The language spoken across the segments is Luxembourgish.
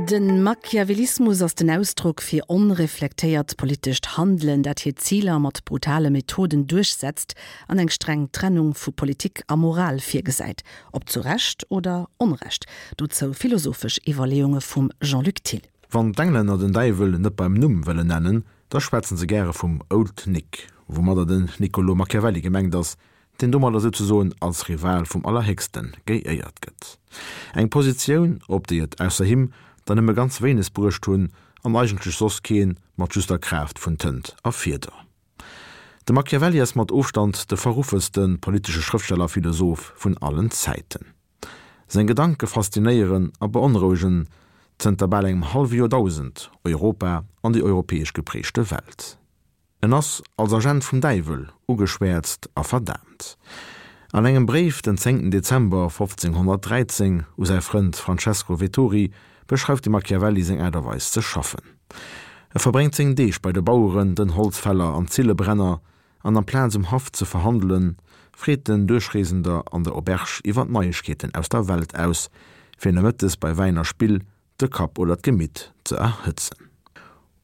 De Machiavellismus ass den Ausdrock fir onreflektéiert politescht Handelen, dat hir Ziler mat brutale Methoden duerchsetzt an eng streng Trennung vu Politik a Moral virgesäit. Ob zu Recht oder Onrecht? Dozou philosophesch Iwwerleeunge vum Jean-Luc Thill. Wann d'Englänner den Däiwel net beim Numm wëllen nennen, da schwätzen se gäre vum Old Nick, woumadder den Niccolò Machiavelli gemengt ass, deen domadder souzesoen als Rival vum Allerhéchste geéiert gëtt. Eng Positioun, op déi et ausser him der nëmme ganz wéineg bruecht hunn, an eigentlech soss keen, mat just der Kraaft vun Tënt a Fieder. De Machiavelli ass mat Ofstand de verruffeste politesche Schrëftsteller a Philosoph vun allen Zäiten. Seng Gedanke faszinéieren a beonrouegen zënter bal engem hallwe Joerdausend Europa an déi europäesch geprägte Welt. En ass als Agent vum Däiwel ugeschwäerzt a verdaamt. An engem Bréif den 10 Dezember 1513 u säi Frënd Francesco Vettori beschreift de Machiavelli seng Aart a Weis ze schaffen. E verbréngt seng Deeg bei de Baueren, den Holzfäller an Zillebrenner, an amplaz um Haff ze verhandelen, freet en Duerchreesender an der Auberge iwwer d'Neiegkeeten aus der Welt aus, fir nomëttes bei Wäin a Spill de Kapp oder d'Gemitt ze erhëtzen.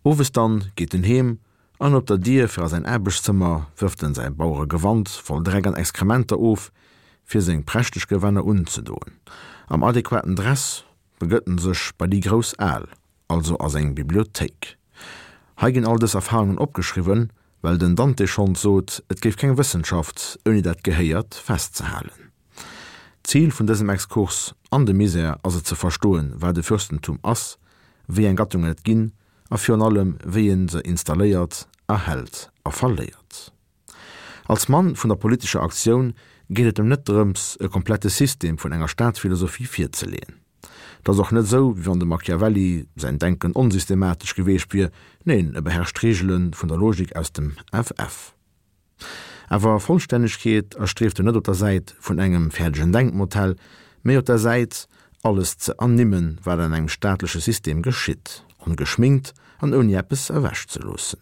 Owes dann geet en heem an op der Dier fir a säin Aarbechtszëmmer wërft en säi Baueregewand voll Dreck an Exkrementer of, fir seng prächteg Gewänner unzedoen. Am adequaten Dress begëtt en sech bei déi grouss Al, also a seng Bibliothéik. Hei ginn all dës Erfahrungen opgeschriwwen, well den Dante schonns sot, et géif keng Wëssenschaft ouni dat Gehéiert festzehalen. D'Zil vun dësem Exkurs an de Misär ass et ze verstoen, wat e Fürstentum ass, wéi eng Gattungen et ginn a virun allem wéi een se installéiert, erhält a verléiert. Als Mann vun der politescher Aktioun geet et em net drëms, e komplette System vun enger Staatsphilosophie virzeleeën. Et ass och net esou, wéi wann dem Machiavelli säin Denken onsystematesch geweecht wier, neen, e beherrscht d'Reegele vun der Logik aus dem FF. Awer Vollstännegkeet erstrieft en net op der Säit vun engem fäerdegen Denkmodell, mee op der Säit, alles ze ernimmen, wat an engem staatleche System geschitt, ongeschminkt an ouni eppes ewechzeloossen.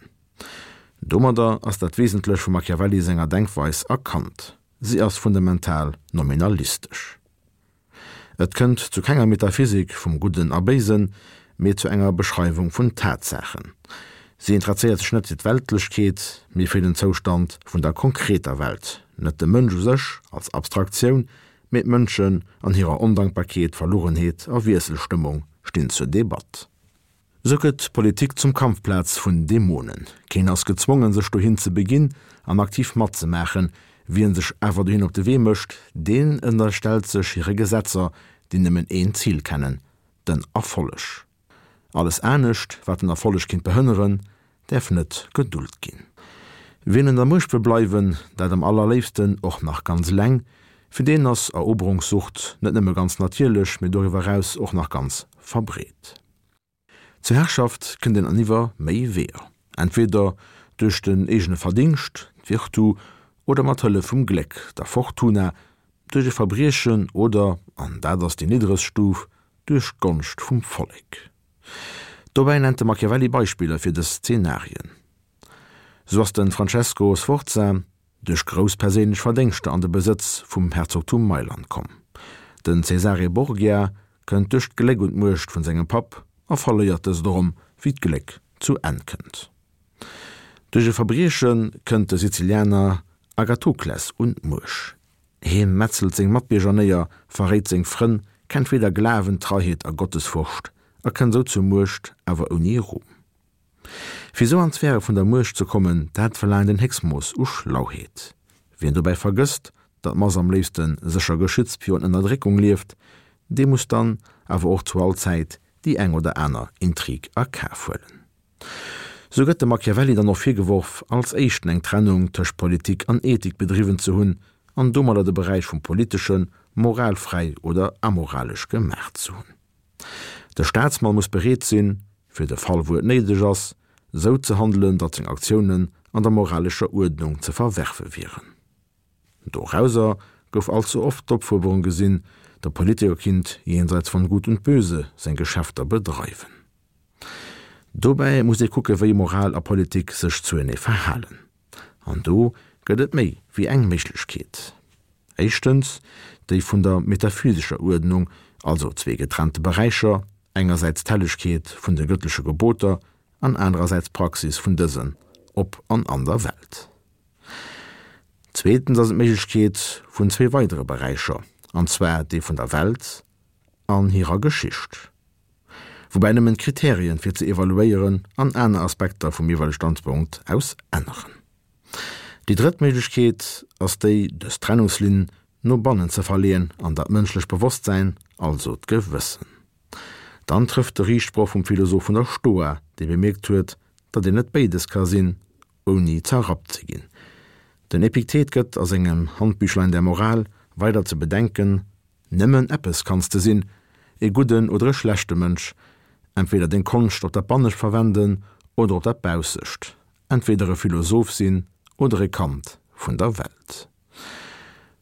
Domadder ass dat Wesentlech vum Machiavelli senger Denkweis erkannt, si ass fundamental nominalistesch. Et kënnt zu kenger Metaphysik vum Gudden a Béisen, mee zu enger Beschreiwung vun Tatsaachen. Si intresséiert sech net fir d'Weltlechkeet, mee fir den Zoustand vun der konkreter Welt, net de Mënsch u sech als Abstraktioun, mee d'Mënschen an hirer Ondankbarkeet, Verlugenheet a Wiesselstëmmung stinn zur Debatt. Sou gëtt d'Politik zum Kampfplaz vun Dämonen. Keen ass gezwongen, sech dohin ze beginn an aktiv matzemaachen. Wien sech awer dohin op de Wee mécht, deen ënnerstellt sech hire Gesetzer, déi nëmmen een Zil kennen, den Erfolleg. Alles anescht, wat den Erfolleg kinnt behënneren, däerf net gedult ginn. Wien un der Muecht wëll bleiwen, dat am allerléifsten och nach ganz eleng, fir deen ass Eroberungssucht net nëmme ganz natierlech, mee doriwwer eraus och nach ganz verbreet. Zur Herrschaft kënnt een an iwwer méi Weeër, entweder duerch den eegene Verdingscht, d'Virtu, oder mat Hëllef vum Gléck, der Fortuna, duerch e Verbriechen oder, an dat ass déi niddregst Stuf, duerch d'Gonscht vum Vollek. Dobäi nennt de Machiavelli Beispiller fir dës Zenarien. Sou ass de Francesco Sforza duerch grouss perséinlech Verdéngschter an de Besëtz vum Herzogtum Mailand komm. Den Cesare Borgia kënnt duerch d'Gléck un d'Muecht vun sengem Papp a verléiert dëst erëm, wéi d'Gléck zu Enn kënnt. Duerch e Verbrieche kënnt de Sizilianer Agathokles un d'Muecht. Hie metzelt seng Matbierger néier, verréit seng Frënn, kennt weder Glawen, Treiheet a Gottesfurcht a kënnt sou zur Muecht, awer ouni Ruhm. Fir esou an d'Sphäre vun der Muecht ze kommen, dat verlaangt en Héchstmooss u Schlauheet. Wien dobäi vergësst, datt d'Mass am léifste sécher geschützt virun Ënnerdréckung lieft, dee muss dann awer och zu all Zäit déi eng oder aner Intrig a Kaf huelen. Sou gëtt dem Machiavelli dann och virgeworf, als éischten eng Trennung tëscht Politik an Ethik bedriwwen ze hunn an domadder de Beräich vum Politesche moralfräi oder amoralesch gemaach ze hunn. De Staatsmann muss bereet sinn, fir de Fall wou et néideg ass, sou ze handelen, datt seng Aktiounen an der moralescher Uerdnung ze verwerfe wieren. Dorauser gouf allze oft d'Opfuerderung gesinn, de Politiker kinnt jenseits von Gut und Böse seng Geschäfter bedreiwen. Dobäi muss ee kucke wéi Moral a Politik sech zuenee verhalen. An do gëtt et méi wéi eng Méiglechkeet. Éischtens déi vun der metaphysescher Uerdnung, also zwee getrennte Beräicher. Engersäits d'Hellegkeet vun de gëttleche Geboter an anerersäits d'Praxis vun dësen op an an der Welt. Zweetens ass et d'Méiglechkeet vun zwee weidere Beräicher, an zwar dee vun der Welt an hirer Geschicht, woubäi nëmmen d'Kriterien fir ze evaluéieren an aner Aspekter vum jeeweilege Standpunkt aus änneren. Déi drëtt Méiglechkeet ass déi, dës Trennungslinn no bannen ze verleeën an dat mënschlecht Bewosstsäin, also d'Gewëssen. Dann trëfft de Riichtsproch vum Philosoph vun der Stoa, dee bemierkt huet, datt een net béides ka sinn, ouni zerrappt ze ginn. Den Epiktet gëtt a sengem Handbüchlein der Moral weider ze bedenken, Nëmmen eppes kanns de sinn, e gudden oder e schlechte Mënsch, entweder deng Konscht op dat Bannescht verwenden oder op dat Baussescht, entweder e Philosoph sinn oder e Kand vun der Welt.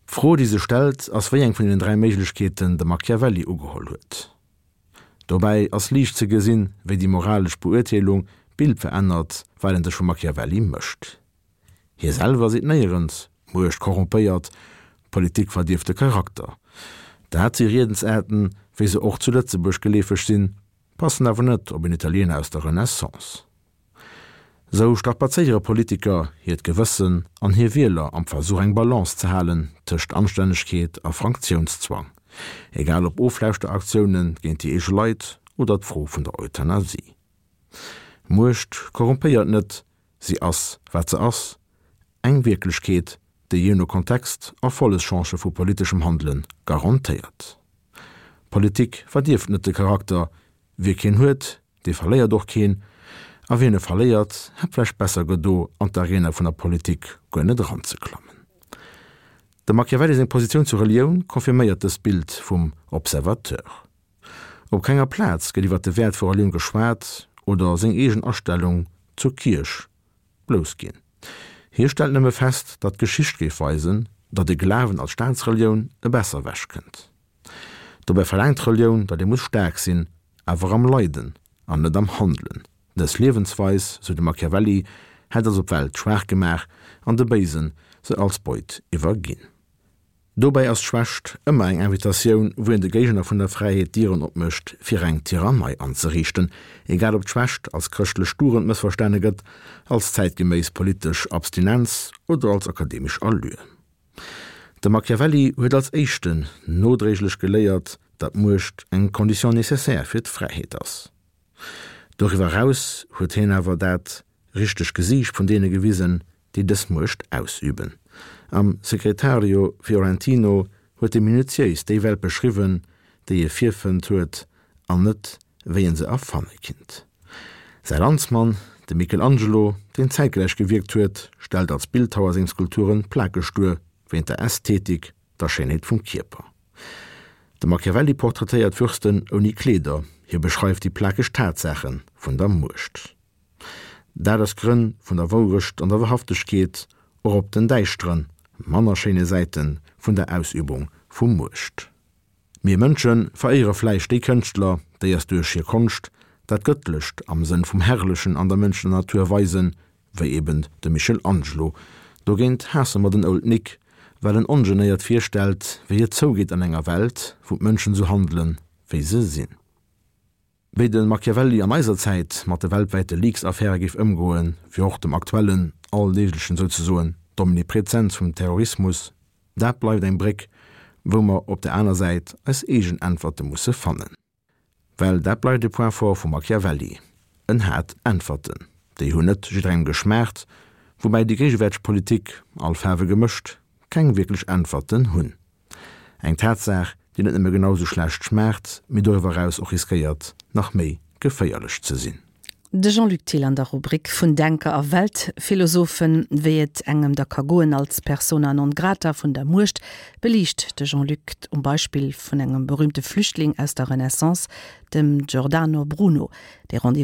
D'Fro, déi sech stellt, ass wéi eng vun deenen 3 Méiglechkeeten de Machiavelli ugeholl huet. Dobäi ass liicht ze gesinn, wéi déi moralesch Beurteelung d'Bild verännert, wat een sech vum Machiavelli mécht. Hie selwer seet néierens, Muecht korrompéiert, Politik verdierft de Charakter. Dat si Riedensaarten, wéi se och zu Lëtzebuerg geleefeg sinn, passen awer net op en Italiener aus der Renaissance. Sou strapazéiere Politiker hiert Gewëssen an hir Wieler am Versuch eng Balance ze halen tëscht Anstännegkeet a Franktionszwang, egal ob Oflauschteraktioune géint déi eege Leit oder d'Fro vun der Euthanasie. Muecht korrumpéiert net, si ass wat se ass, eng Wierklechkeet, déi jee no Kontext Erfollegschance vu politeschem Handele garantéiert. Politik verdierft net de Charakter, Wie keen huet, dee verléiert och keen, a wien e verléiert, hätt vläicht besser gedo, an d'Arena vun der Politik guer net eranzeklammen. Dem Machiavelli seng Positioun zur Relioun confirméiert dëst Bild vum Observateur. Op kenger Plaz gëtt iwwer de Wäert vu Relioun geschwat oder seng eegen Astellung zur Kierch bloussginn. Hie stellt nëmme fest, datt d'Geschicht géif weisen, datt e Glawen als Staatsrelioun e besser ewechkënnt. Dobäi verlaangt d'Relioun, datt ee muss staark sinn, awer am Leiden an net am Handelen. Dës Liewensweis, sou de Machiavelli, hätt also d'Welt schwaach gemaach an de Béisen se als Beut iwwerginn. Dobäi ass d'Schwächt ëmmer eng Invitatioun, wou een de Géigner vun der Fräiheet d'Dieren opmécht, fir eng Tyrannei anzeriichten, egal ob d'Schwächt als chrëschtlech Dugend mëssverstane gëtt, als zäitgeméiss politesch Abstinenz oder als akademesch Allure. De Machiavelli huet als éischten nodréiglech geléiert, datt Muecht eng Condition nécessaire fir d'Fräiheet ass. Doriwwer eraus huet hien awer dat richteg Gesiicht vun deene gewisen, déi dës Muecht ausüben. Am Secretario Fiorentino huet e minutiéis déi Welt beschriwwen, déi e virfënnt huet, an net wéi en se erfanne kinnt. Säi Landsmann, de Michelangelo, deen zäitgläich gewierkt huet, stellt als Bildhauer seng Skulpturen plakeg duer, wéint der Ästhetik, der Schéinheet vum Kierper. De Machiavelli portraitéiert Fürsten ouni Kleeder, hie beschreift déi plakeg Tatsaache vun der Muecht. Dat aus Grënn vun der Wourecht an der Wahrhaftegkeet, och op den däischteren, manner schéine Säite vun der Ausübung vu Muecht. Mir Mënsche veréiere vläicht déi Kënschtler, déi eis duerch hir Konscht dat Gëttlecht am Sënn vum Herrlechen an der mënschlecher Natur weisen, wéi eben de Michelangelo. Dogéint haasse mer den Old Nick, well en ongenéiert virstellt, wéi et zougeet an enger Welt, wou d'Mënschen esou handelen, wéi se sinn. Wéi de Machiavelli an eiser Zäit mat de weltwäite Leaks-Affäre géif ëmgoen, wéi och dem aktuellen, alldeeglechen souzesoen, d'Omniprezenz vum Terrorismus, dat bleift eng Bréck, wou mer op der aner Säit eis eegen Äntwerte musse fannen. Well dat bleift e Point fort vum Machiavelli, en hat Äntwerten, déi hunn net jidderengem geschmaacht, woubäi déi géigewäerteg Politik, all Faarwe gemëscht, keng wierklech Äntwerten hunn. Eng Tatsaach, déi net nëmme genau sou schlecht schmaacht, mee doriwwer eraus och riskéiert, nach méi geféierlech ze sinn. De Jean-Luc Thill an der Rubrik Vun Denker a Weltphilosophen. Wéi et engem da ka goen als Persona non grata vun der Muecht, beliicht de Jean-Luc um Beispill vun engem berühmte Flüchtling aus der Renaissance, dem Giordano Bruno. Dee Rendez-vous.